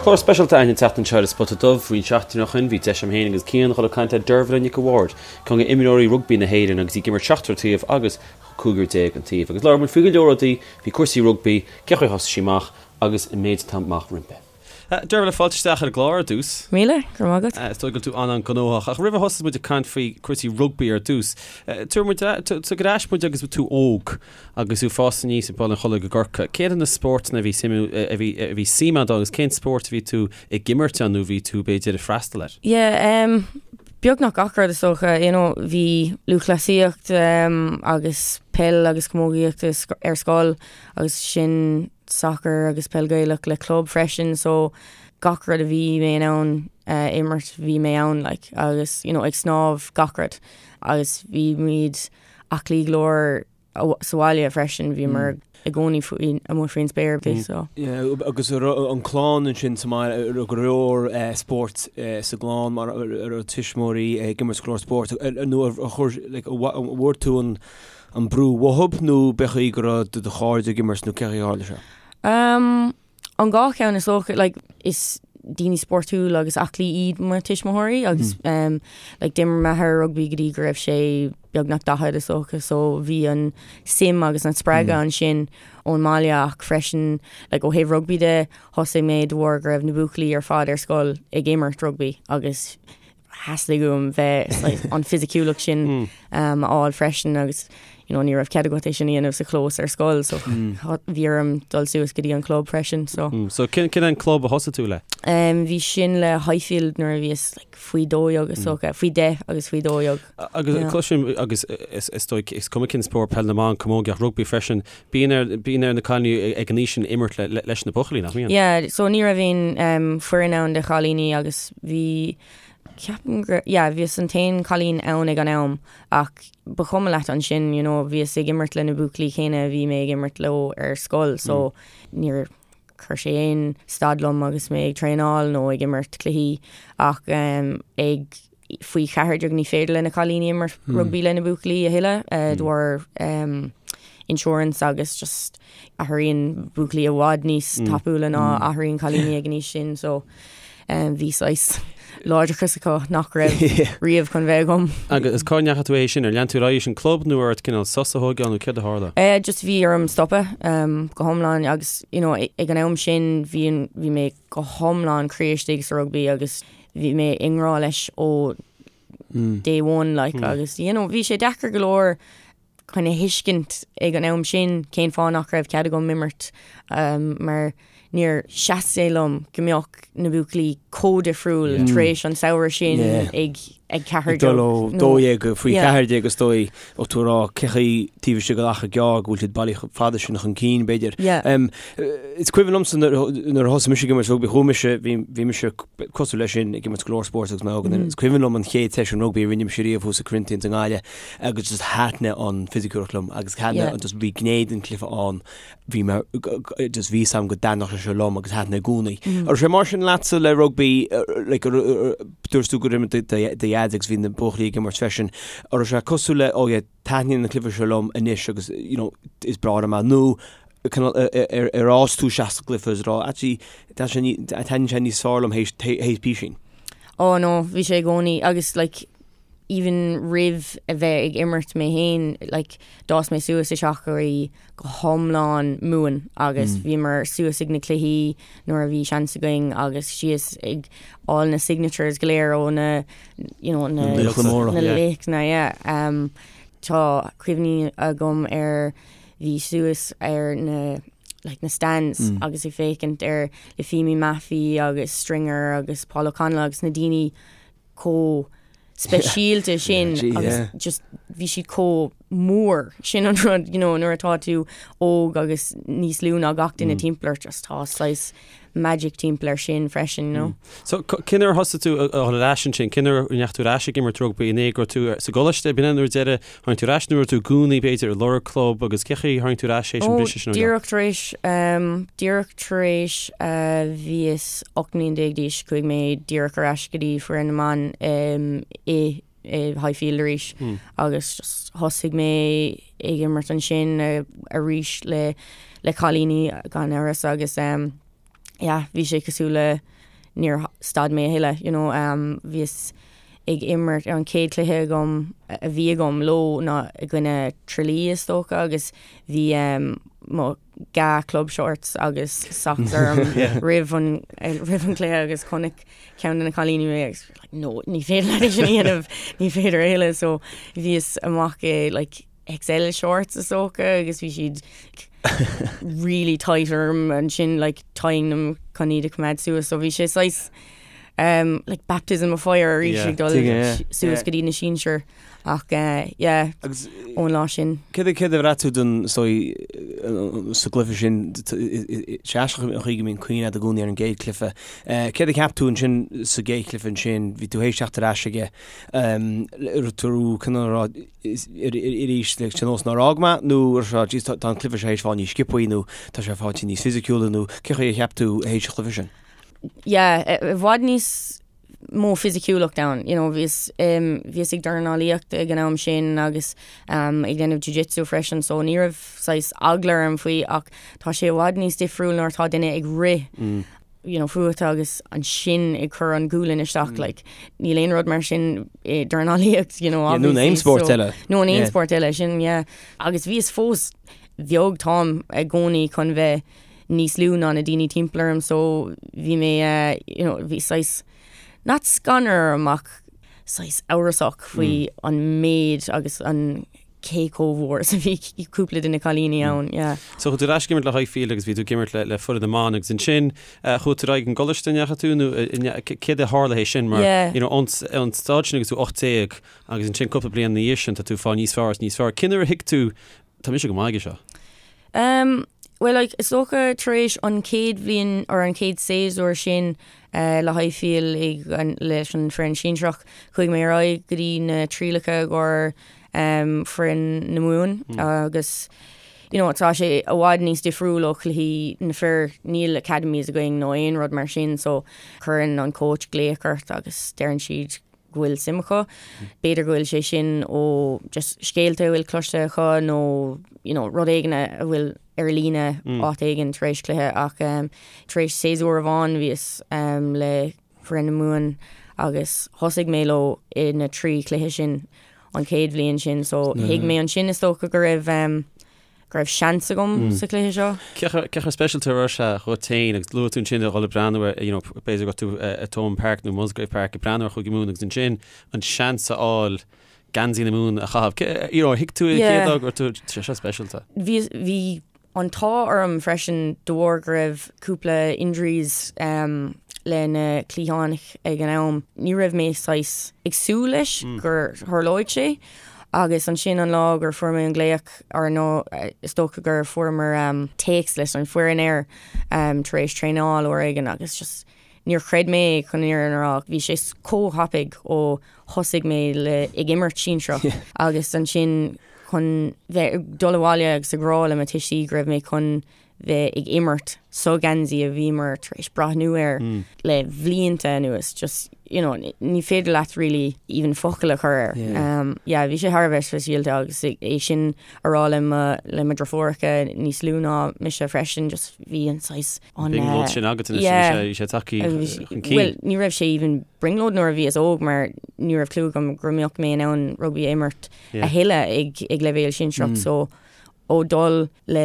Clár speisialta againn an tseachtain seo ar An Spota Dubh. Roinnt seachtainí ó shin bhí deis agam féin agus Cian dhul ag caint le Dervla Nic a' Bhaird, ceann de imreoirí rugbaí na hÉireann agus í ag imirt seachtar taobh agus 15 an taobh. Agus labhair muid faoi go leor rudaí, faoi cúrsaí rugbaí, cén chaoi a thosaigh sí amach agus an méid atá amach roimpi. Dervla, fáilte isteach ar an gclár ar dtús. Míle, go raibh maith agat. Is dóigh go bhfuil tú an-an-ghnóthach, ach roimh a thosós muid ag caint faoi cúrsaí rugbaí ar dtús, tabhair muid, tóg ar ais muid agus tú óg agus tú ag fás aníos i mBaile an Chollaigh i gCorcaigh. Céard iad na spórtanna a bhí suim, a bhí, a bhí suim agat ann agus cén spórt a bhí tú ag imirt ann nó bhí tú b'fhéidir ag freastal air? Yeah, um, beagnach gach rud is dócha, you know, bhí lúthchleasaíocht um, agus peil agus camógaíocht ar scoil agus sin sacar agus peil Gaelach le club freisin so gach rud a bhí mé in ann imirt bhí mé ann like agus you know ag snámh gach rud agus bhí muid aclaí go leor sa bhaile freisin bhíomar i gcónaí faoi amuigh faoin spéir so. Yeah, agus an clann ansin sa mbaile raibh go leor spóirt sa gclann mar raibh tuismitheoirí ag imirt go leor spóirt nó ar chuir like an bhfuair tú an an brú uathub nó b'é chaoi go raibh do do chairde ag imirt nó cé chaoi a tharla sé? Um, an dhá cheann is dócha, like, is daoine spórtúil agus aclaí iad mo tuismitheoirí agus mm. um, like, d'imir m'athair rugbaí go dtí go raibh sé beagnach 40 is dócha so bhí an suim agus an spreagadh mm. ansin ón mbaile ach freisin like, ó thaobh rugbaí de thosaigh mé de bharr go raibh na buachaillí ar fad ar scoil ag imirt rugbaí agus theastaigh uaim bheith an fisiciúlacht sin a fháil freisin agus you know, ní raibh cead agat é sin a dhéanamh sa chlós ar scoil so bhí orm dul suas go dtí an club freisin so. So cén cén an club a thosaigh tú le? Um, bhí sin le Highfield nuair a bhíos like, faoi 12 is dócha, faoi 10 agus faoi 12. Agus yeah. cloisim agus is, is dóigh is cuma cén spórt peil na mban camógaíocht rugbaí freisin, bíonn ar bíonn ar na cailíní ag an aois sin imirt le, le, leis na buachaillí nach mbíonn? Yeah, so ní raibh aon um, foireann ann de chailíní agus bhí ceapaim gur yeah, bhíos an t-aon cailín ann ag an am ach ba chuma leat ansin, you know, bhíos ag imirt le na buachaillí céanna a bhí mé ag imirt leo ar scoil so níor chuir sé aon stad liom agus mé ag traenáil nó ag imirt cluichí ach um, ag faoi 14 ní féidir le na cailíní imirt rugbaí le na buachaillí a thuilleadh de bharr um, insurance agus just athraíonn buachaillí i bhfad níos tapúla ná athraíonn cailíní ag an aois sin so um, bhí saghas láidreachas acu nach raibh riamh chun bheith agam. Agus cá ndeachaigh tú é sin ar lean tú ar aghaidh leis an club nó ar ort cineál sos a thógáil nó céard a tharla? Eh, just bhí orm stopadh um, go hiomlán agus you know, ag an am sin bhí, bhí mé go hiomlán croí istigh sa rugbaí agus bhí mé i ngrá leis ó day one like agus you know, bhí sé deacair go leor chun a thuiscint ag an am sin cén fáth nach raibh cead agam imirt um, mar níor sheas sé liom go mbeadh na buachaillí chomh difriúil tar éis an samhradh sin ag ag 14 Dul ó 12 go faoi 14 is dóigh ó tú rá cé chaoi taobh istigh de achar gearr go bhfuil siad bailí fada sin chun cinn b'fhéidir. Is cuimhin liomsa nuair a thosaigh mise ag imirt rugbaí chuaigh mise bhí mise cosúil leis sin ag imirt go leor spóirt agus mé óg. Is cuimhin liom an chéad seisiún rugbaí a rinne mise riamh thuas i Corinthians i nGaillimh agus just thaitnigh an fisiciúlacht liom agus thaitnigh yeah. just bhí gné den chluiche ann bhí mé just bhí 'fhios a'm go dtaitneodh sé seo liom agus thaitnigh i gcónaí. Mm. An raibh sé mar sin leatsa le rugbaí like, dúirt tú gur imir do dhaid agus bhí na buachaillí ag imirt freisin. An raibh sé cosúil le oh yeah, taitníonn an cluiche seo liom anois agus you know, is breá liom é nó ar fhás tú isteach sa gcluiche is rá actually taitníonn sé níos fearr liom théis písín. Oh no, bhí sé i gcónaí agus like even roimh a bheith ag imirt mé féin like d'fhás mé suas i teach a bhí go hiomlán Mumhan agus mm. bhíomar suas ag na cluichí nuair a bhí seans againn agus síos ag fháil na signatures go léir ó na you know, na laochra yeah. Um, tá cuimhní agam ar bhí suas ar na like na stands mm. agus ag féachaint ar Lifeimi Mafi agus Stringer agus Paul O'Connell agus na daoine chomh speisialta sin agus just bhí siad chomh mór sin an rud you know, nuair atá tú óg agus níos lú ná gach duine mm. timpeall ort just tá saghas magic timpeall air sin freisin, you know. Mm. So cén uair a thosaigh tú a dhul ar ais ansin, cén uair a ndeachaigh tú ar ais ag imirt rugbaí an é go raibh tú sa gcoláiste, b'in é nuair deireadh tháinig tú ar ais nó raibh tú i gcónaí b'fhéidir ag lorg club agus cé chaoi tháinig tú ar ais théis an briseadh sin? Díreach tar éis um, díreach tar éis uh, bhíos 18 mbliain d'aois chuaigh mé díreach ar ais go dtí foireann na mban um, i i Highfield arís mm. agus just thosaigh mé ag imirt ansin uh, arís le le cailíní gan amhras agus um, yeah, bhí sé cosúil le níor stad mé a thuilleadh, you know, bhíos ag imirt ar an chéad chluiche agam a bhí agam leo ná i gcoinne Tralee is dócha agus bhí mo dhá club shorts agus socks orm roimh an roimh an chluiche agus chonaic ceann de na cailíní mé agus like no ní féidir leat é sin a dhéanamh ní féidir a thuilleadh so bhíos amach i like XL shorts is dócha agus bhí siad really tight orm ansin like tying them chun iad a choimeád suas so bhí sé saghas um, like baptism of fire arís ag dul suas go dtí na sinsir ach uh, yeah Agus ón lá sin. Céard a céard a bhraith tú don so sa gcluiche sin sé aisteach an chaoi go mbíonn cuimhne agat i gcónaí ar an gcéad chluiche. Eh, Céard a cheap tú ansin sa gcéad chluiche ansin bhí tú théis teacht ar ais aige um, tú cineál rá arís le nós nár fhág mé nó ar seo jeez tá an cluiche seo théis fáil níos sciobthaí nó tá sé fáilte níos fisiciúla nó cé chaoi a cheap tú théis an chluiche sin? Yeah, i bhfad níos mó fisiciúlacht ann, you know, bhíos um, bhíos ag dornálaíocht ag an am sin agus um, ag déanamh jiu-jitsu freisin, so ní raibh saghas eagla orm faoi ach tá sé i bhfad níos difriúil nuair atá duine ag rith mm. you know, fút agus ansin ag cur an gualainn isteach, like, níl aon rud mar sin i dornálaíocht, you know, Yeah, nó in aon spórt eile. Nó in aon spórt eile, sin, yeah. Agus bhíos fós beag táim i gcónaí chun bheith níos lú ná na daoine timpeall orm, so bhí mé, eh, you know, bhí saghas, not scanradh orm ach saghas amhrasach faoi an méid agus an cé chomh mhór is a bhí cúpla de na cailíní ann, yeah. So chuaigh tú ar ais ag imirt le Highfield agus bhí tú ag imirt le le foireann na mban agus ansin chuaigh tú ar aghaidh an gcoláiste an ndeachaigh tú nó céard a tharla théis sin mar Yeah. you know ón ón staid sin agus tú 18 agus ansin cúpla bliain ina dhiaidh sin tá tú ag fáil níos fearr is níos fearr. Cén uair a thuig tú tá mise go maith aige seo? Um, well like is dócha tar éis an chéad bhliain or an chéad séasúr sin uh, le Highfield ag an, leis an foireann sinsearach, chuaigh mé ar aghaidh go dtí na trialacha i gcomhair um, foireann na Mumhan agus you know, tá sé i bhfad níos difriúil ó chluichí na fir, níl academies againn nó aon rud mar sin so cuireann an coach glaoch ort agus deireann siad go bhfuil suim acu. B'fhéidir go bhfuil sé sin ó just scéalta a bhfuil cloiste acu nó you know, rud éigin a bhfuil ar líne áit éigin tar éis cluiche ach um, tar éis séasúr amháin bhíos um, le foireann na Mumhan agus thosaigh mé leo i na trí chluiche sin an chéad bhliain sin so thuig mé ansin is dócha go raibh um, go raibh seans agam sa chluiche seo. Cé chomh speisialta a raibh sé dhuit féin agus luaigh tú ansin a dhul ag breathnú ar you know b'fhéidir go raibh tú i Thomond Park nó Musgrave Park ag breathnú ar Chúige Mumhan agus ansin an seans a fháil geansaí na Mumhan a chaitheamh. You know, thuig tú an chéad lá go raibh tú sé seo speisialta. Bhí bhí an t-ádh orm freisin de bharr go raibh cúpla injuries le na cliatháin ag an am. Ní raibh mé saghas ag súil leis gur tharlóidh sé agus ansin an lá gur fuair mé an glaoch or nó is dócha gur fuaireamar téacs leis an foireann air tar éis traenáil uair éigin agus just Níor chreid mé chun an fhírinne a rá. Bhí sé chomh thapaidh ó thosaigh mé le ag imirt sinsearach agus ansin chun bheith ag dul abhaile agus ag rá le mo tuistí go raibh mé chun bheith ag imirt sa gheansaí a bhíomar tar éis breathnú air le blianta anuas. Just, you know, ní féidir leat really even focal a chur air. Um, yeah, bhí sé thar a bheith speisialta agus é sin a rá le mo le mo dheirfiúracha níos lú ná mise freisin, just bhí an saghas an brionglóid sin agat anois, bhí sé tagtha chun cinn. Bhuel, ní raibh sé even brionglóid nuair a bhíos óg mar ní raibh clue agam go mbeadh mé in ann rugbaí a imirt a thuilleadh ag ag leibhéal sinsearach so ó dul le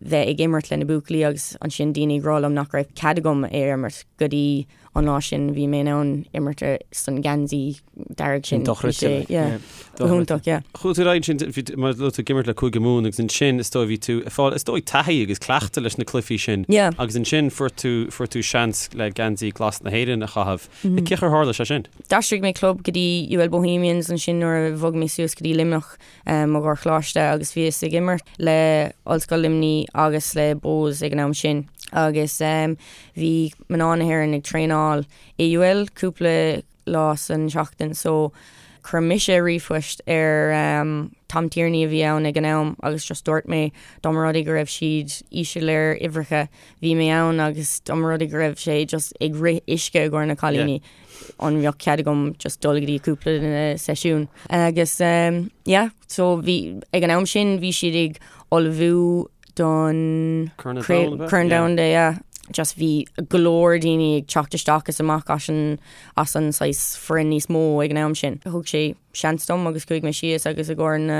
bheith ag imirt le na buachaillí agus ansin daoine ag rá liom nach raibh cead agam é a imirt go dtí an lá sin bhí mé in ann imirt san geansaí dearg sin. Dochreidte. Yeah. Go hiontach, yeah. Chuaigh tú ar aghaidh ansin, bhí, mar luaigh tú ag imirt le Cúige Mumhan agus ansin is dóigh bhí tú ag fáil, is dóigh taithí agus cleachtadh leis na cluichí sin. Yeah. Agus ansin fuair tú, fuair tú seans le geansaí glas na hÉireann a chaitheamh. Mm. Cén chaoi ar tharla sé sin? D'aistrigh mé club go dtí UL Bohemians ansin nuair a bhog mé suas go dtí Luimneach um, i gcomhair choláiste agus bhíos ag imirt le Ollscoil Luimnigh agus le Bohs ag an am sin. Agus um, bhí mná na hÉireann ag traenáil i UL cúpla lá san seachtain so chuir mise ríomhphost ar um, Tom Tierney a bhí ann ag an am agus just dúirt mé dá mba rud é go raibh siad íseal ar uimhreacha bhí mé ann agus dá mba rud é go raibh sé just ag rith uisce i gcomhair na cailíní an mbeadh cead agam just dul go dtí cúpla de na seisiúin agus um, yeah, so bhí ag an am sin bhí siad ag ullmhú don Corn Domhanda, yeah. Just bhí go leor daoine ag teacht isteach is amach as an as an saghas foireann níos mó ag an am sin. Thug sé seans dom agus chuaigh mé síos agus i gcomhair na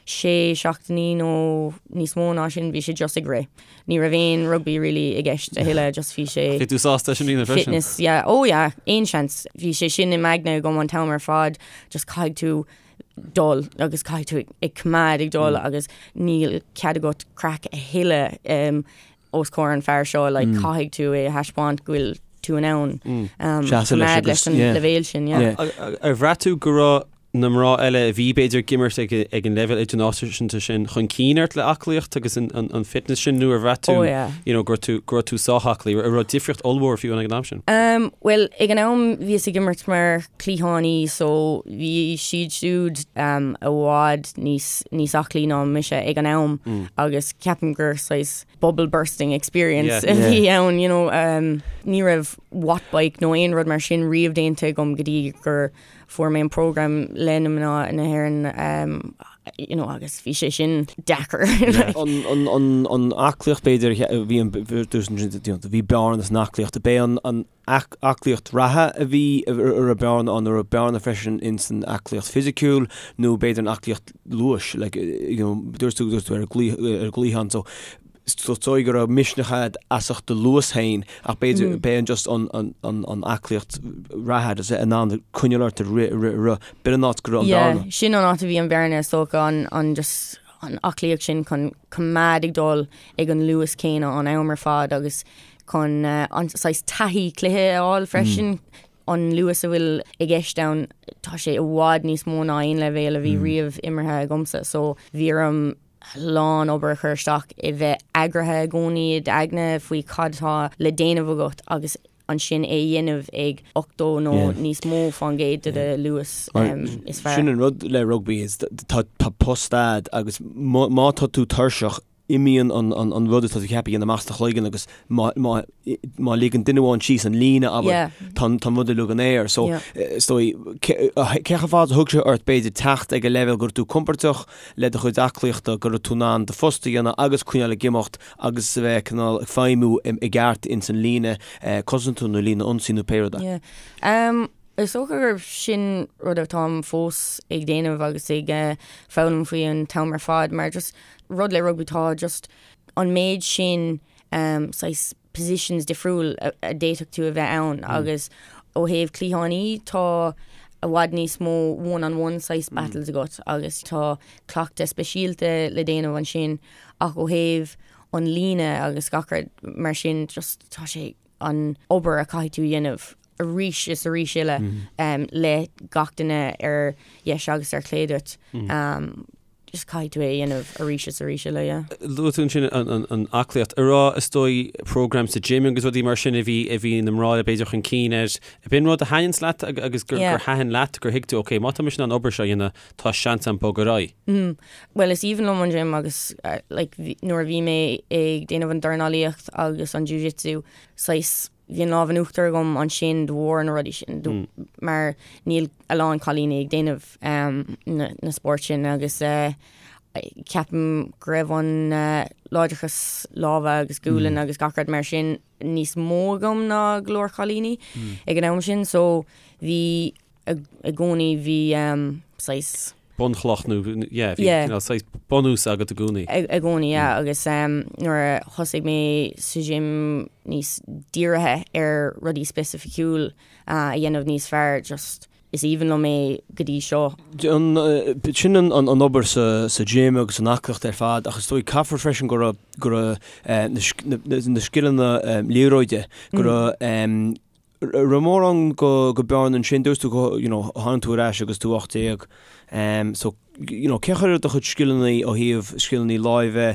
sé seachtainí nó níos mó ná sin bhí sé just ag rith. Ní raibh aon rugbaí really i gceist a thuilleadh just bhí sé Bhí tú sásta sin a dhéanamh freisin? Fitness, yeah, oh yeah, aon seans. Bhí sé sin i m'aigne agam an t-am ar fad, just caithfidh tú dul agus caithfidh tú ag coimeád ag dul agus níl cead agat craic a thuilleadh um, os comhair an fear seo, like, caithfidh tú é a thaispeáint go bhfuil tú in ann um, Seasamh leis coimeád agus- leis an yeah. leibhéal sin, yeah. Yeah. Ar bhraith tú go raibh na mná eile a bhí b'fhéidir ag imirt ag ag an leibhéal idirnáisiúnta sin chun cinn ort le aclaíocht agus an, an, an fitness sin nó ar bhraith tú Oh, yeah. you know, go raibh tú, go raibh tú sách aclaí, an raibh difríocht ollmhór fiú ag an am sin? Um, well, ag an am bhíos ag imirt mar cliathánaí so bhí siad siúd um, i bhfad níos, níos aclaí ná mise ag an am mm. agus ceapaim gur saghas bubble bursting experience a bhí ann, you know, um, ní raibh watt bike nó aon rud mar sin riamh déanta agam go dtí gur fuair mé an program le na mná na hÉireann um, you know, agus bhí sé sin deacair. An, an, an, an aclaíocht b'fhéidir bhí an bhí bearna san aclaíocht, b'é an, an aclaíocht reatha a bhí a raibh bearna ann, an raibh bearna freisin in san aclaíocht fisiciúil nó b'fhéidir an aclaíocht luais, like, you know, dúirt tú, dúirt tú ar an gcliathán, so is dóigh go raibh misneach agat as ucht do luas féin ach b'fhéidir mm. b'é an just an, an, an, an aclaíocht reatha agus in ann coinneáil ort ag rith, rith, rith. B'in an áit go raibh an yeah, bearna. Sin an áit a bhí an bearna is dócha an, an just an aclaíocht sin chun coimeád ag dul ag an luas céanna an am ar fad agus chun an saghas taithí cluiche a fháil freisin. An luas a bhfuil i gceist ann, tá sé i bhfad níos mó ná aon leibhéal a bhí riamh imeartha agamsa so bhí orm a lán obair a chur isteach i bheith eagraithe i gcónaí i d'aigne faoi cad atá le déanamh agat agus ansin é a dhéanamh ag 80 nó níos mó fán gcéad de do luas is fearr. Sin an rud le rugbaí is tá post a'd agus má tá tú tuirseach imíonn an rud atá tú ceaptha a dhéanamh amach as do chloigeann agus má má ligeann duine amháin síos an líne abair tá an rud uilig in aer. So is dóigh cé chomh fada a thug sé ort b'fhéidir teacht ag an leibhéal go raibh tú compordach le do chuid aclaíochta go raibh tú in ann do phost a dhéanamh agus coinneáil ag imeacht agus a bheith cineál ag feidhmiú i gceart ins an líne cosanta nó líne ionsaí nó pé rud é. Is dócha gurb sin rud atáim fós ag déanamh agus ag foghlaim faoi an t-am ar fad mar just rud le rugbaí tá just an méid sin um, saghas positions difriúil a, a d'fhéadfadh tú a bheith ann mm. agus ó thaobh cliathánaí tá i bhfad níos mó one on one saghas mm. battles agat agus tá cleachtadh speisialta le déanamh ansin ach ó thaobh an líne agus gach rud mar sin just tá sé an obair a caithfidh tú a dhéanamh arís is arís eile mm. um, le gach duine ar dheis agus ar chlé duit. Mm. Um, just caithfidh tú é a dhéanamh arís is arís eile, yeah. Luaigh tú ansin an aclaíocht. An raibh is dóigh program sa gym agus rudaí mar sin a bhí a bhí na mná eile b'fhéidir chun cinn air. B'in rud a thaitníonns leat agus gur gur thaitin leat gur thuig tú ok má tá mise in ann an obair seo a dhéanamh tá seans agam bogadh ar aghaidh. Mm. Well is aoibhinn liom an gym agus like nuair a bhí mé ag déanamh an dornálaíocht agus an jiu-jitsu saghas bhí an lámh in uachtar agam ansin de bharr na rudaí sin mm. mar níl a lán cailíní ag déanamh um, na, na spóirt sin agus uh, ceapaim go raibh an uh, láidreachas láimhe agus gualainn mm. agus gach rud mar sin níos mó agam ná go leor cailíní mm. ag an am sin so bhí i gcónaí bhí saghas. bunchloch nó yeah bhí yeah. cineál saghas bunús agat i gcónaí. I gcónaí yeah agus um, nuair a thosaigh mé sa gym níos dírithe ar rudaí specificiúil uh, a dhéanamh níos fearr just is aoibhinn liom é go dtí seo. An, sin an, an, an obair sa, sa gym agus an aclaíocht ar fad ach is dóigh caithfear freisin go raibh go raibh uh, na, na, na scileanna um, liathróide go raibh um, raibh mórán go go bearna ansin, dúirt tú go you know tháinig tú ar ais agus tú 18 um so you know cén chaoi a raibh do chuid scileanna ó thaobh scileanna láimhe,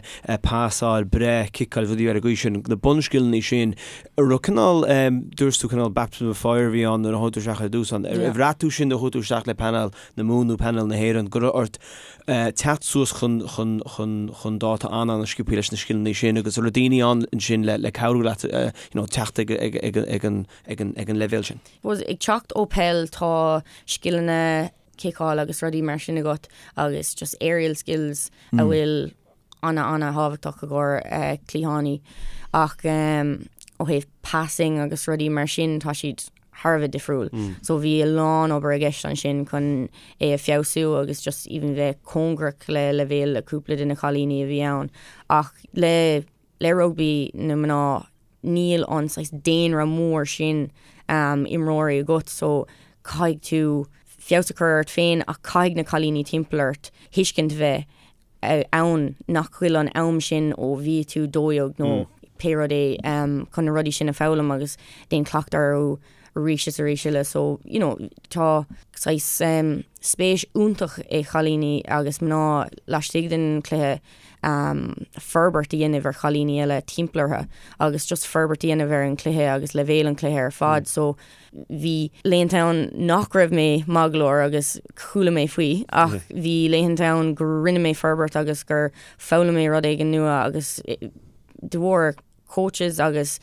pasáil, breith, ciceáil, rudaí ar an gcaoi sin, na bunscileanna sin, an raibh cineál um dúirt tú cineál baptism of fire a bhí ann nuair a chuaigh tú isteach ar dtús ann, ar bhraith tú sin nuair a chuaigh tú isteach le painéal na Mumhan nó painéal na hÉireann go raibh ort teacht suas chun chun chun chun dáta an-an-sciobtha leis na scileanna sin agus an raibh daoine ann ansin le le cabhrú leat you know teacht ag ag ag ag an ag an ag an leibhéal sin. Suppose ag teacht ó peil tá scileanna ciceáil agus rudaí mar sin agat agus just aerial skills a bhfuil ana ana thábhachtach i gcomhair cliathánaí ach um, ó thaobh passing agus rudaí mar sin tá siad thar a bheith difriúil. So bhí a lán obair i gceist ansin chun é a feabhsú agus just even bheith cóngarach le leibhéal cúpla de na cailíní a bhí ann. Ach le le rugbaí na mná níl an saghas daonra mór sin imreoirí agat so caithfidh tú feabhas a chur ort féin ach caithfidh na cailíní timpeall ort tuiscint bheith ann nach bhfuil an am sin ó bhí tú 12 nó pé rud é chun na rudaí sin a foghlaim agus déan cleachtadh orthu arís is arís eile so you know tá saghas spéis iontach ag chailíní agus mná laistigh den chluiche forbairt a dhéanamh ar chailíní eile timpeall orthu agus just forbairt a dhéanamh ar an chluiche agus leibhéal an chluiche ar fad so Bhí laethanta ann nach raibh mé maith go leor agus chuala mé faoi ach bhí laethanta ann go rinne mé forbairt agus gur foghlaim mé rud éigin nua agus de bharr coaches agus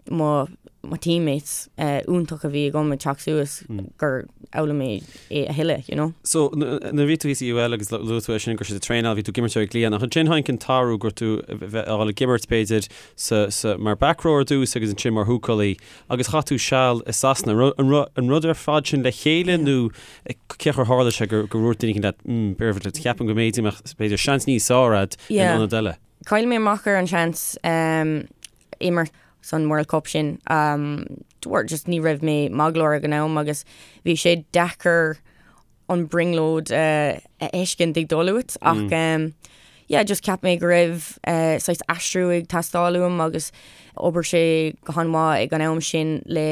mo mo teammates iontach a bhí agam ag teacht suas gur fhoghlaim mé é a thuilleadh, you know. So, nuair a bhí tú thíos i UL agus luaigh tú é sin go raibh siad ag traenáil, bhí tú ag imirt ar an gcliathán ach ansin tháinig an t-athrú go raibh tú a bheith a dhul ag imirt b'fhéidir sa sa mar back rower ar dtús agus ansin mar húcálaí. Agus chaith tú seal i Sasana. An rud ar fad sin le chéile nó cén chaoi ar tharla sé gur dhúirt duine éicint leat, mm, Dervla, ceapaim go mb'fhéidir mbeadh, b'fhéidir, seans níos fearr a'd in ionad eile? Chaill mé amach ar an seans imirt san World Cup sin. De bharr just ní raibh mé maith go leor ag an am agus bhí sé deacair an brionglóid a fheiscint ag dul uait ach yeah just cheap mé go raibh saghas aistriú ag teastáil uaim agus d'oibir sé go han-mhaith ag an am sin le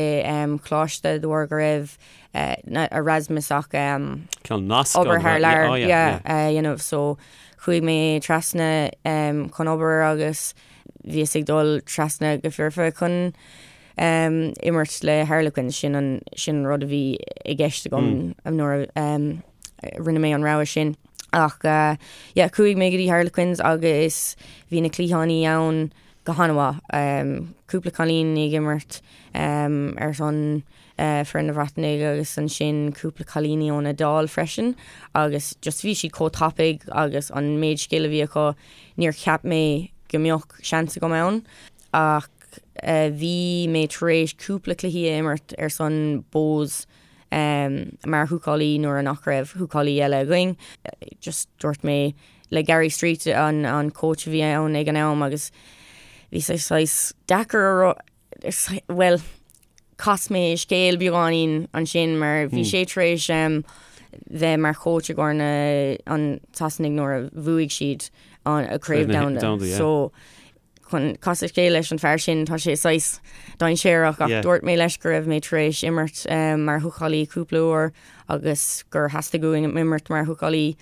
coláiste de bharr go raibh Erasmus ach Ceann nasc obair thar lear yeah a dhéanamh so chuaigh mé trasna chun obair agus bhíos ag dul trasna go foirfe chun imirt le Harlequins, sin an sin an rud a bhí i gceist agam nuair a rinne mé an rogha sin. Ach yeah, chuaigh mé go dtí Harlequins agus bhí na cliathánaí ann go han-mhaith. Cúpla cailín ag imirt ar son foireann na Breataine agus ansin cúpla cailíní ón Iodáil freisin agus just bhí siad chomh tapaidh agus an méid scil a bhí acu, níor cheap mé go mbeadh seans agam ann ach Bhí mé tar éis cúpla cluichí a imirt ar son Bohs mar húcálaí nuair a nach raibh húcálaí eile againn. Just dúirt mé le Gary Street an an coach a bhí ann ag an am agus bhí sé saghas deacair a rá bhuel chas mé scéal beagáinín ansin mar bhí sé tar éis bheith mar choach i gcomhair na an tSasanaigh nuair a bhuaigh siad an Craobh Domhanda. So chun casadh scéal leis an fear sin, tá sé saghas dainséarach ach dúirt mé leis go raibh mé tar éis imirt mar húcálaí cúpla uair agus gur theastaigh uaim imirt mar húcálaí.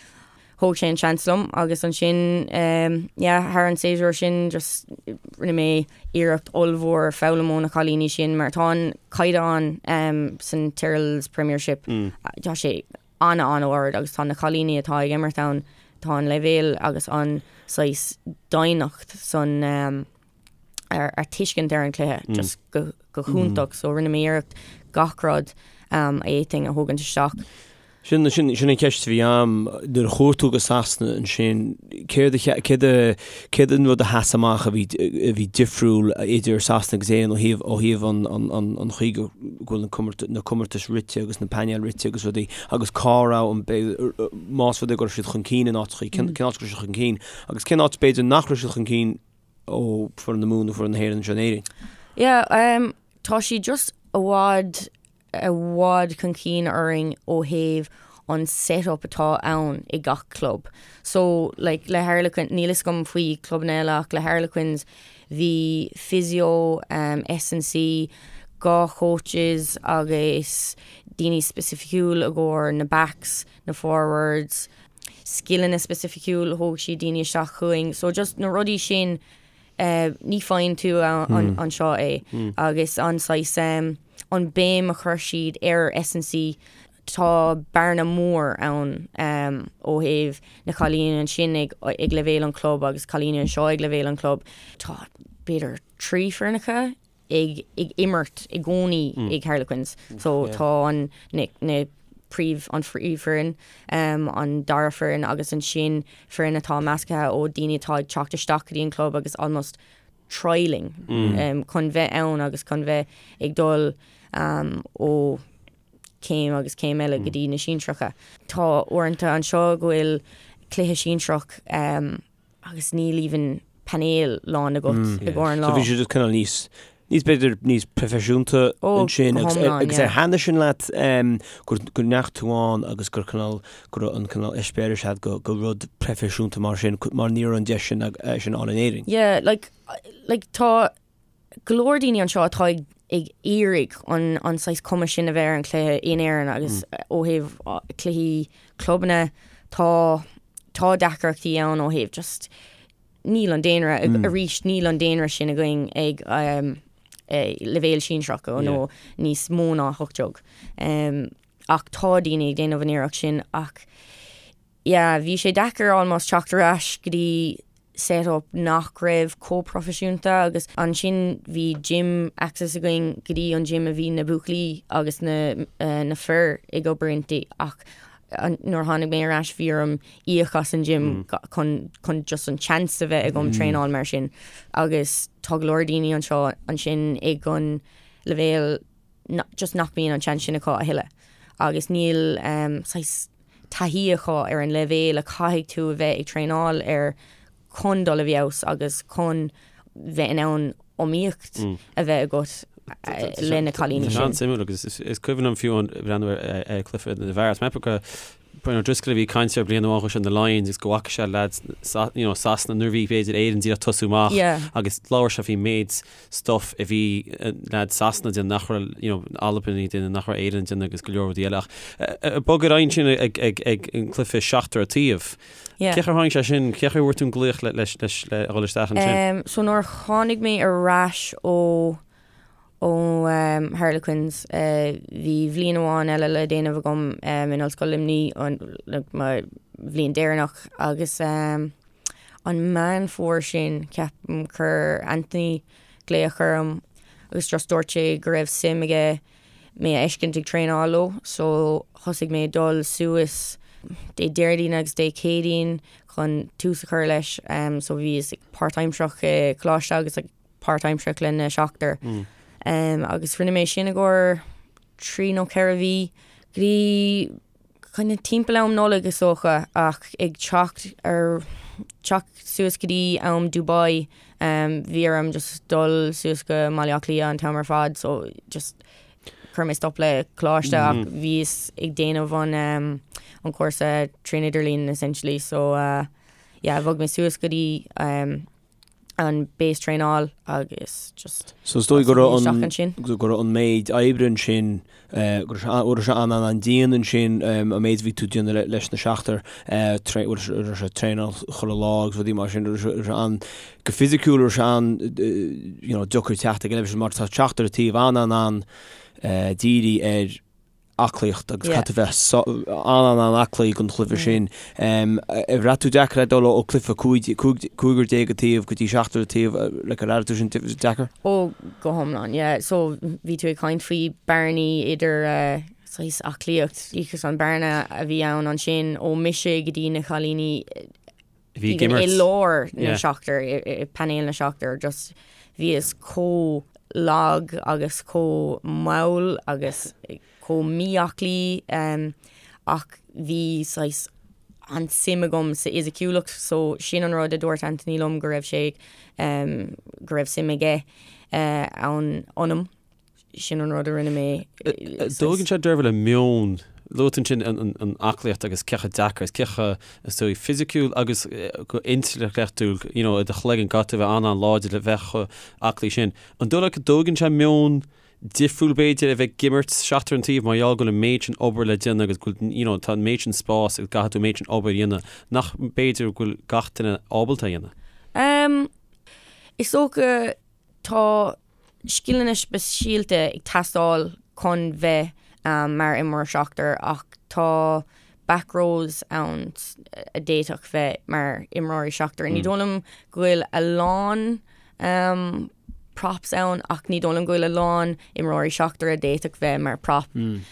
Thóg sé an seans liom agus ansin yeah thar an séasúr sin just rinne mé iarracht ollmhór foghlaim ó na cailíní sin mar tá an caighdeán san Tyrrell's Premiership tá sé an-an-ard agus tá na cailíní atá ag imirt ann, tá an leibhéal agus an saghas doimhneacht san ar ar tuiscint ar an chluiche just go go hiontach so rinne mé iarracht gach rud a fhéadfainn a thógaint isteach. Sin sin sin an cheist a bhí a'm nuair a chuaigh tú go Sasana ansin céard a céard a céard an rud a sheas amach a bhí a bhí difriúil idir Sasana agus Éirinn ó thaobh ó thaobh an an an an chaoi go go bhfuil na na comórtais rite agus na painéil rite agus rudaí agus cá raibh an más rud é go raibh siad chun cinn in áiteachaí cén cén áit go raibh siad chun cinn agus cén áit b'fhéidir nach raibh siad chun cinn ó foireann na Mumhan nó foireann na hÉireann anseo in Éirinn. Yeah, um, tá siad just i bhfad i bhfad chun cinn orainn ó thaobh an set-up atá ann i gach club. So, like, le Harlequin, níl fhios agam faoi clubanna eile ach le Harlequins bhí physio, um, S&C, 2 coaches agus daoine specificiúil i gcomhair na backs, na forwards, scileanna specificiúil, thóg siad daoine isteach chugainn. So just na rudaí sin ní faigheann tú anseo é agus an saghas an béim a chuir siad ar S&C tá bearna mór ann ó thaobh na cailíní ansin ag ag leibhéal an club agus cailíní anseo ag leibhéal an club. Tá b'fhéidir 3 foirneacha ag ag imirt i gcónaí ag Harlequins so tá an na na príomh an phríomhfhoireann an dara foireann agus ansin foireann atá measctha ó daoine atá ag teacht isteach go dtí an club agus almost. trialing chun bheith ann agus chun bheith ag dul ó céim agus céim eile go dtí na sinsearacha. Tá uaireanta anseo go bhfuil cluiche sinsearach agus níl even painéal lán agat i gcomhair an lá. So bhí sé just cineál níos níos b'fhéidir níos proifisiúnta ansin agus agus ar thaitnigh sin leat gur go ndeachaigh tú ann agus gur cineál go raibh an cineál eispéireas agat go go rud proifisiúnta mar sin mar ní raibh an deis sin sin ann in Éirinn. Yeah, like like tá go leor daoine anseo atá ag ag iarraidh an an saghas cuma sin a bheith ar an chluiche in Éirinn agus ó thaobh cluichí clubanna tá tá deacrachtaí ann ó thaobh just níl an daonra arís níl an daonra sin againn ag leibhéal sinsearach nó níos mó ná 18. Ach tá daoine ag déanamh an iarracht sin ach yeah bhí sé deacair almost teacht ar ais go dtí set up nach raibh chomh proifisiúnta agus ansin bhí gym access againn go dtí an gym a bhí na buachaillí agus na na fir ag obair inti ach nuair a tháinig mé ar ais bhí orm íoc as an gym chun chun just an chance a bheith agam traenáil mar sin agus tá go leor daoine anseo ansin ag an leibhéal just nach mbíonn an chance sin acu a thuilleadh agus níl saghas taithí acu ar an leibhéal a chaithfidh tú a bheith ag traenáil air chun dul i bhfeabhas agus chun bheith in ann iomaíocht a bheith agat le na cailíní sin. Tá sé an-suimiúil agus is cuimhin liom fiú ag breathnú ar chluiche na bhfear. Is mé go Brian O'Driscoll a bhí ag caint ar bliain amháin chuaigh sé na Lions agus go bhfaca sé lads you know, Sasana nuair a bhí b'fhéidir Éirinn díreach tosú amach agus labhair sé faoin méid stuff a bhí lads Sasana ag déanamh nach raibh you know, Albain ag déanamh nach raibh Éirinn ag déanamh agus go leor rudaí eile ach bog ar aghaidh ansin ag, ag, ag an cluiche seachtar an taobh. Yeah. Cén chaoi ar tháinig sé sin, cén chaoi a bhfuair tú an glaoch le, leis, leis, le dhul isteach ansin? Um, so nuair a tháinig mé ar ais ó ó um, Harlequins uh, bhí bhliain amháin eile le déanamh agam um, in Ollscoil Luimnigh an, like, mo bhliain deireanach agus um, an Meán Fómhair sin ceapaim chuir Anthony glaoch orm agus just dúirt sé go raibh suim aige mé a fheiscint ag traenáil leo so thosaigh mé ag dul suas Dé Déardaoin agus Dé Céadaoin chun tús a chur leis so bhíos páirtaimsearach i coláiste agus ag páirtaimsearach le na seachtar agus rinne mé sin i gcomhair 3 nó 4 mhí go dtí kind of timpeall am Nollag is dócha ach ag teacht ar teacht suas go dtí am Dubai bhí orm just dul suas go mBaile Átha Cliath an t-am ar fad so just chuir mé stop le coláiste ach bhíos ag déanamh an an cúrsa trín idirlíon essentially so uh, yeah bhog mé suas go dtí um, an base traenáil agus just So is dóigh go raibh an go raibh an méid oibre ansin go raibh sé an an dian ansin an méid a bhí tú ag déanamh leis na seachtar raibh sé traenáil chuile lá agus rudaí mar sin raibh sé an go fisiciúil raibh sé an you know deacair teacht ag an leibhéal sin mar tá seachtar an taobh an an an dírithe ar aclaíocht agus caithfidh tú bheith an-an-an-aclaí don chluiche sin. Ar bhraith tú deacair é dul ó cluiche 15 an taobh go dtí seachtar an taobh, like ar airigh tú sin deacair? Ó, go hiomlán, yeah. So bhí tú ag caint faoi bearnaí idir saghas aclaíocht, agus an bearna a bhí ann ansin ó mise go dtí na cailíní Bhí ag imirt. i lár na seachtar, i painéal na seachtar, just bhíos chomh lag agus chomh mall agus chomh mí-aclaí ach bhí saghas an-suim agam sa fhisiciúlacht so sin an rud a dúirt Anthony liom go raibh sé go raibh suim aige ann ionam. Sin an rud a rinne mé. Dtógann sé Deirbhile meon, luaigh tú ansin an aclaíocht agus cé chomh deacair is cé chomh is dóigh fisiciúil agus go intleachtúil you know i do chloigeann caithfidh tú a bheith an-an-láidir le bheith chomh aclaí sin. An dóigh leat go dtógann sé meon difriúil b'fhéidir a bheith ag imirt seachtar an taobh mar gheall go bhfuil an méid sin obair le déanamh agus go bhfuil you know tá an méid sin spás agus caithfidh tú an méid sin obair a dhéanamh nach b'fhéidir go bhfuil gach duine ábalta a dhéanamh? Um, is dócha tá scileanna speisialta ag teastáil chun bheith mar imreoir seachtar ach tá back rows ann a d'fhéadfadh bheith mar imreoirí seachtar. Ní dóigh liom go bhfuil a lán props ann ach ní dóigh liom go bhfuil a lán imreoirí seachtar a d'fhéadfadh bheith mar prop.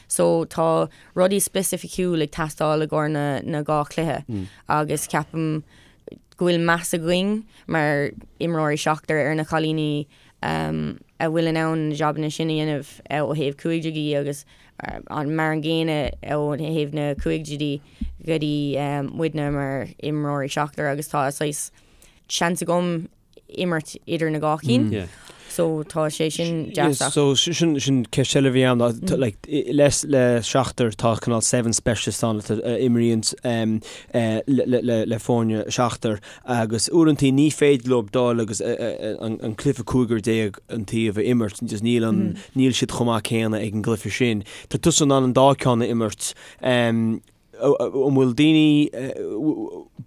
So tá rudaí specificiúil ag teastáil i gcomhair na, na dhá chluiche agus ceapaim. go bhfuil meas againn mar imreoirí seachtar ar na cailíní a bhfuil in ann na jabanna sin a dhéanamh ó thaobh cúigidí agus an mar an gcéanna ó thaobh na cúigidí go dtí muidne mar imreoirí seachtar agus tá saghas seans agam imirt idir na dhá cinn. So tá sé sin deas. So sin sin ceist eile a bhí ann like le le seachtar tá cineál seven specialist ann a imríonn le le le foirne seachtar agus uaireantaí ní féidir leo dul agus an cluiche 15 an taobh a imirt just níl an níl siad chomh maith céanna ag an gcluiche sin. Tá tusa in ann an dá ceann a imirt. An bhfuil daoine,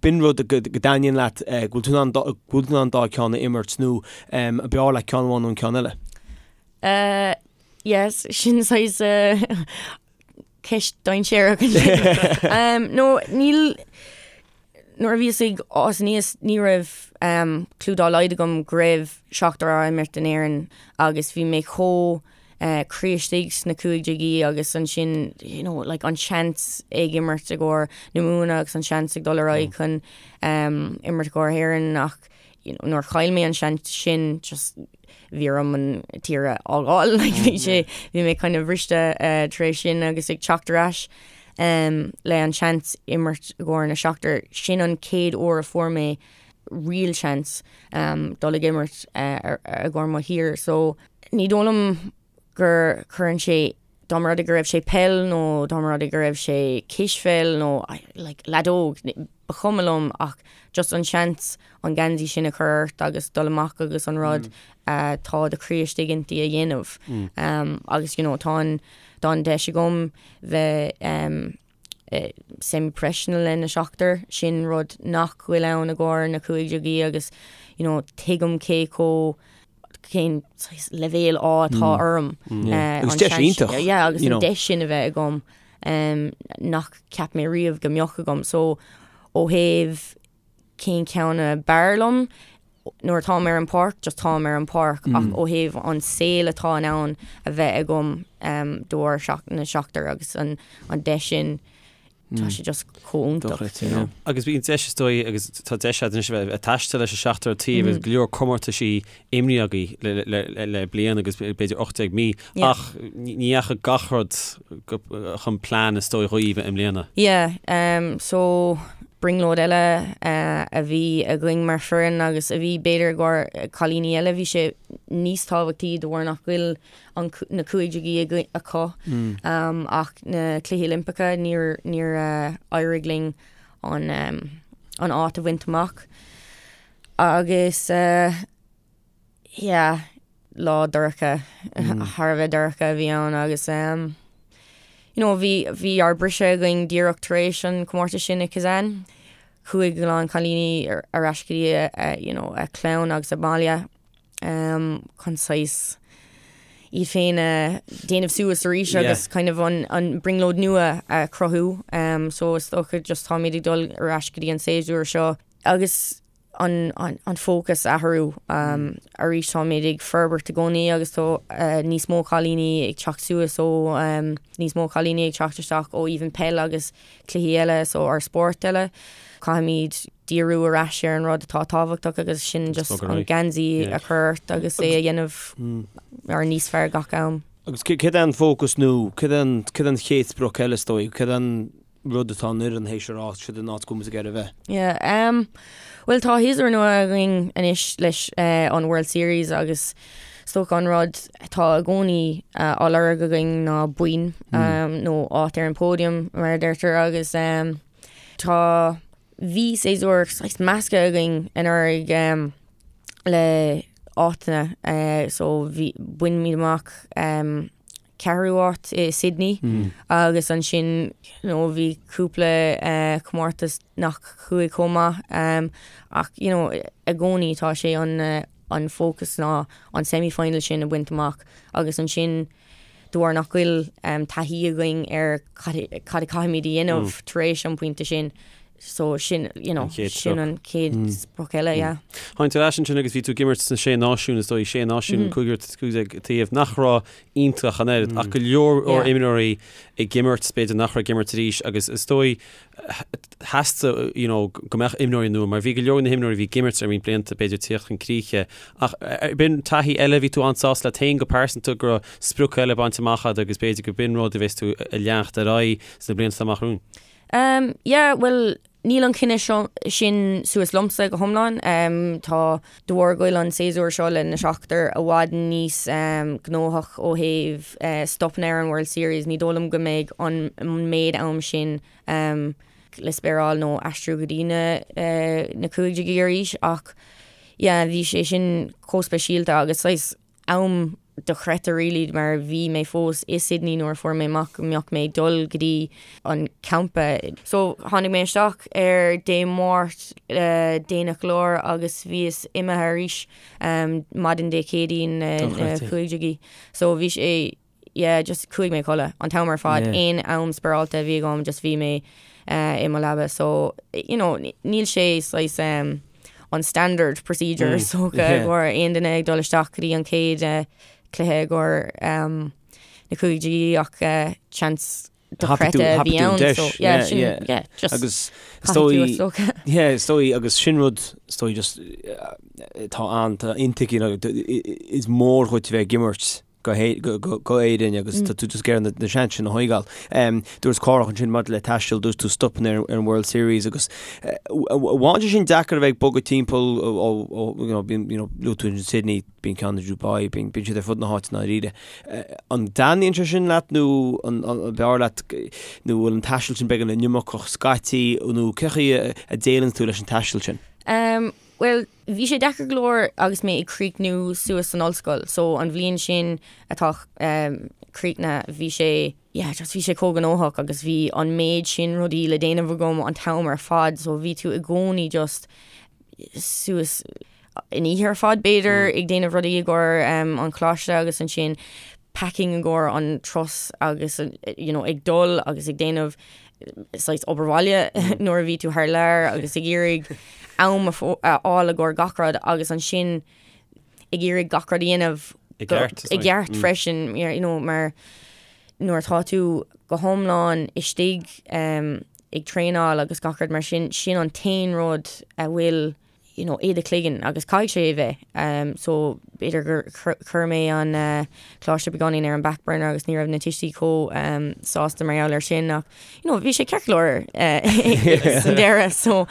b'in rud go dtaitníonn leat, go bhfuil tú in ann, go bhfuil tú in ann an dá ceann a imirt nó an b'fhearr leat ceann amháin nó an ceann eile? Yes, sin saghas ceist dainséarach ansin. No, níl, Nuair a bhíos ag fás aníos ní raibh clue dá laghad agam go raibh seachtar á imirt in Éirinn agus bhí mé chomh croí istigh sna cúigidí agus ansin you know like an seans ag imirt i gcomhair na Mumhan agus an seans ag dul ar aghaidh chun imirt i gcomhair Éireann ach you know nuair chaill mé an seans sin just bhí orm an tír a fhágáil like bhí sé bhí mé kind of briste tar éis sin agus ag teacht ar ais le an seans imirt i gcomhair na seachtar. Sin an chéad uair a fuair mé real seans dul ag imirt i gcomhair mo thír. So ní dóigh liom gur cuireann sé dá mba rud é go raibh sé peil nó dá mba rud é go raibh sé cispheil nó like leadóg, ba chuma liom ach just an seans an geansaí sin a chur ort agus dul amach agus an rud atá do chroí istigh inti a dhéanamh. Agus you know tá an tá an deis agam bheith semi-professional le na seachtar, sin rud nach bhfuil ann i gcomhair na cúigidí agus you know tuigim cé chomh cén saghas leibhéal ádh atá orm. Agus deis iontach. Yeah, agus an deis sin a bheith agam nach cheap mé riamh go mbeadh agam. So ó thaobh cén ceann a b'fhearr liom, nuair atáim ar an páirc, just táim ar an páirc, ach ó thaobh an saol atá in ann a bheith agam de bharr na seachtar agus an deis sin, tá sé just chomh iontach, you know. Agus bíonn deis is dóigh, agus tá deis agat anois a bheith ag taisteal leis an seachtar taobh agus go leor comórtaisí imrithe agaibh le bliain agus b'fhéidir 18 mí, ach ní dheachaigh gach rud chun plean is dóigh dhaoibh i mbliana. Yeah, so brionglóid eile a bhí againn mar foireann agus a bhí b'fhéidir i gcomhair cailíní eile, bhí sé níos tábhachtaí de bharr nach bhfuil an na cúigidí acu ach na Cluichí Oilimpeacha níor níor éirigh linn an an áit a bhaint amach agus yeah lá dorcha thar a bheith dorcha a bhí ann agus you know bhí bhí ár briseadh againn díreach tar éis an comórtas sin i Kazan. Chuaigh a lán cailíní ar ais go dtí a you know a clann agus a mbaile chun saghas iad féin a déanamh suas arís agus kind of an an brionglóid nua a chruthú. So is dócha just táimid ag dul ar ais go dtí an séasúr seo agus an an fócas a athrú. Arís táimid ag forbairt i gcónaí agus tá níos mó cailíní ag teacht suas ó níos mó cailíní ag teacht isteach ó even peil agus cluichí eile so ár spórt eile. Caithfimid díriú ar ais ar an rud atá tábhachtach agus sin just an geansaí a chur ort agus é a dhéanamh mar níos fearr gach am. Agus céard é an fócas nó céard é an chéad sprioc eile is dóigh? Céard é an rud atá an fhoireann théis a rá siod an áit go bhfuil muid ag iarraidh a bheith. Yeah, um, bhuel tá séasúr nua againn anois leis uh, an World Series agus is dócha an rud atá i gcónaí uh, á lorg againn ná boinn mm. um, nó áit ar an podium mar a deirtear agus um, tá bhí séasúr saghas measctha againn anuraidh um, le áiteanna uh, so bhí bhain muid amach um, ceathrú áit i Sydney agus ansin you know bhí cúpla comórtas nach chuaigh chomh maith ach you know i gcónaí tá sé an an fócas ná an semi-final sin a bhaint amach agus ansin de bharr nach bhfuil taithí againn ar cad a caithfimid a dhéanamh tar éis an pointe sin. So sin, you know, sin an chéad sprioc eile, yeah. Tháinig tú ar ais ansin agus bhí tú ag imirt sna Sé Náisiún, is dóigh, Sé Náisiún, cúigear 15 taobh, nach raibh iontach an oiread, ach go leor imreoirí ag imirt, b'fhéidir nach raibh ag imirt arís agus is dóigh theastaigh, you know, go mbeadh imreoirí nua, mar bhí go leor na himreoirí a bhí ag imirt ar roinnt blianta, b'fhéidir tíocht chun críche. Ach b'in taithí eile, bhí tú an-sásta leat féin go pearsanta go raibh sprioc eile bainte amach agat agus b'fhéidir go b'in rud a bheas tú a leanacht ar aghaidh sna blianta amach romhainn. Um, yeah, bhuel, níl an cinneadh seo, sin suas liomsa go hiomlán. Um, tá, de bharr go bhfuil an séasúr seo le na seachtar i bhfad níos um, gnóthach ó thaobh uh, stopanna ar an World Series, ní dóigh liom go mbeidh an, an méid am sin um, le spéireáil nó aistriú go dtí na, uh, na cúigí arís ach yeah, bhí sé sin chomh speisialta agus saghas am dochreidte really mar bhí mé fós i Sydney nuair a fuair mé amach go mbeadh mé ag dul go dtí an campa. So tháinig mé isteach ar Dé Máirt déanach go leor agus bhíos imithe arís maidin Dé Céadaoin na cúigí. So bhí sé yeah just chuaigh mé a chodladh an t-am ar fad aon am spéireáilte a bhí agam just bhí mé i mo leaba so you know níl sé saghas an standard procedure is dócha i gcomhair aon duine ag dul isteach go dtí an chéad cluiche i gcomhair na cúigí ach seans dochreidte a bhí ann so yeah sin yeah just agus is dóigh yeah is dóigh agus sin rud is dóigh just tá an tá intuigthe is mór dhuit bheith ag imirt go hÉirinn agus tá tú just ag iarraidh na seans sin a thógáil. Dúirt Cárthach ansin maidir le taisteal, dúirt tú stopanna ar an World Series agus bhain sé sin deacair a bheith ag bogadh timpeall ó you know bíonn you know luaigh tú ansin Sydney, bíonn ceann i Dubai, bíonn bíonn siad ar fud na háite i ndáiríre. An dtaitníonn sé sin leat nó an b'fhearr leat nó bhfuil an taisteal sin beagán iomarcach scaití nó cé chaoi a déileann tú leis an taisteal sin? Bhuel, bhí sé deacair go leor agus mé ag críochnú suas san ollscoil. So an bhliain sin atá críochnaithe, bhí sé, yeah, just bhí sé chomh gnóthach agus bhí an méid sin rudaí le déanamh agam an t-am ar fad. So bhí tú i gcónaí just suas an oíche ar fad b'fhéidir ag déanamh rudaí i gcomhair an choláiste agus ansin packing i gcomhair an turas agus you know ag dul agus ag déanamh saghas obair bhaile nuair a bhí tú thar lear agus ag iarraidh am a fháil i gcomhair gach rud agus ansin ag iarraidh gach rud a dhéanamh i gceart i gceart freisin you know mar nuair atá tú go hiomlán istigh ag traenáil agus gach rud mar sin sin an t-aon rud a bhfuil you know, i do chloigeann agus caithfidh sé a bheith. So b'fhéidir gur chuir mé an coláiste beagáinín ar an back burner agus ní raibh na tuistí chomh sásta mar gheall air sin ach you know, bhí sé ceart go leor san deireadh. So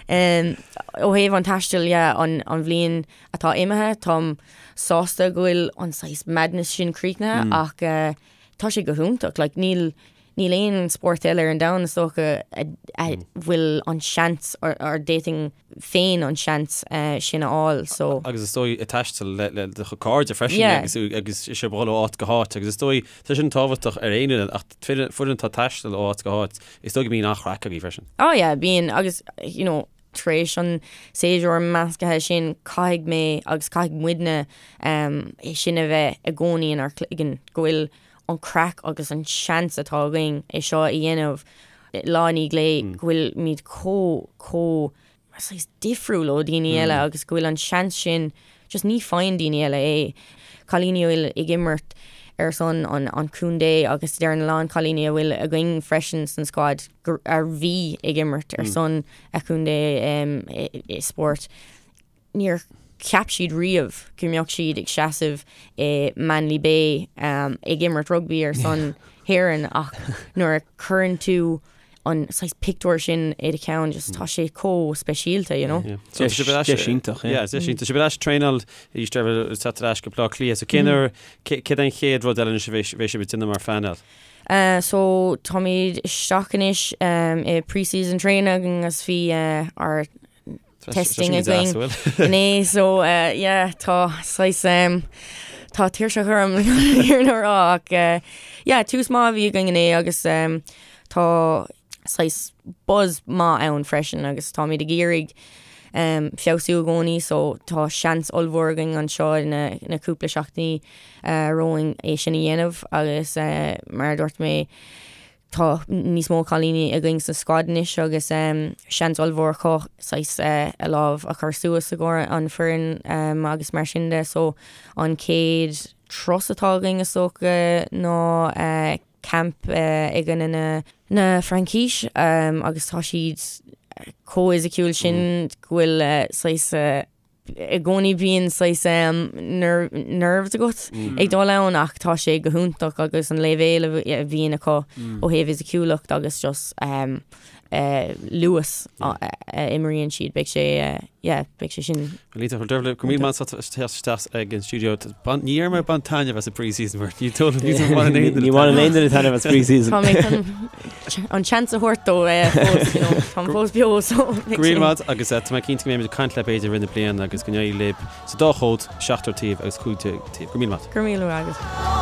ó thaobh an taistil yeah, an, an bhliain atá imithe, táim sásta go bhfuil an saghas madness sin críochnaithe mm. ach uh, tá sé go hiontach, like, níl Níl aon spórt eile ar an domhan is dócha a bhfuil an seans or d'fhéadfainn féin an seans sin a fháil so. Agus is dóigh ag taisteal le le do chuid cairde freisin agus agus sibh ag dul ó áit go háit agus is dóigh tá sin tábhachtach ar aon fhoireann ach foireann atá ag taisteal ó áit go háit is dóigh go mbíonn an-chraic agaibh freisin. Oh yeah bíonn agus you know tar éis an séasúr measctha sin caithfidh mé agus caithfidh muidne é sin a bheith i gcónaí inár gcloigeann go bhfuil an craic agus an seans atá againn é seo a dhéanamh lá i ndiaidh lae, go bhfuilimid chomh, chomh saghas difriúil ó dhaoine eile agus go bhfuil an seans sin, just ní faigheann daoine eile é. Cailíní a bhfuil ag imirt ar son an, an chontae agus deireann a lán cailíní a bhfuil againn freisin san squad gur, a bhí ag imirt ar son a chontae i spórt. Níor cheap siad riamh go mbeadh siad ag seasamh i Manly Bay ag imirt rugbaí ar son hÉireann ach nuair a chuireann tú an saghas pictiúr sin i do cheann just tá sé chomh speisialta, you know. So tá sibh ar ais Deis iontach, yeah. Yeah, deis iontach. Sibh ar ais ag traenáil arís ag teacht ar ais go Baile Átha Cliath. So cén uair, céard é an chéad rud eile anois a bheidh sibh ag déanamh mar phainéal? So táimid isteach anois i pre-season training agus bhí ár testing againn inné so yeah tá saghas um, tá tuirseach orm ar na rá ach uh, yeah tús maith a bhí againn inné agus um, tá saghas buzz maith ann freisin agus táimid ag iarraidh um, feabhsú i gcónaí so tá seans ollmhór againn anseo na, na cúpla seachtainí uh, romhainn é sin a dhéanamh agus uh, mar a dúirt mé. Tá níos mó cailíní againn sa squad anois agus seans ollmhór acu saghas a lámh a chur suas i gcomhair an foireann agus mar sin de. So an chéad turas atá againn is dócha ná camp i gcoinne na na Fraince agus tá siad chomh fhisiciúil sin go bhfuil saghas i gcónaí bíonn saghas nerves agat ag dul ann ach tá sé go hiontach agus an leibhéal a bhíonn acu ó thaobh fhisiciúlacht agus just luas a imríonn siad, beidh sé, yeah, beidh sé sin. Lisa, Dervla, go raibh míle maith agat as teacht isteach ag an stiúideo. Ní dheir mé bain taitneamh as an pre-season mar ní bhaineann aon duine. Ní bhaineann aon duine taitneamh as pre-season. Tá mé chun an chance a thabhairt dó fós, you know, táim fós beo so. Go raibh míle maith agus tá mé cinnte go mbeimid ag caint leat b'fhéidir i rith na bliana agus go n-éirí libh sa dá chód, seachtar taobh agus 15 taobh. Go raibh míle maith. Go raibh míle maith agat.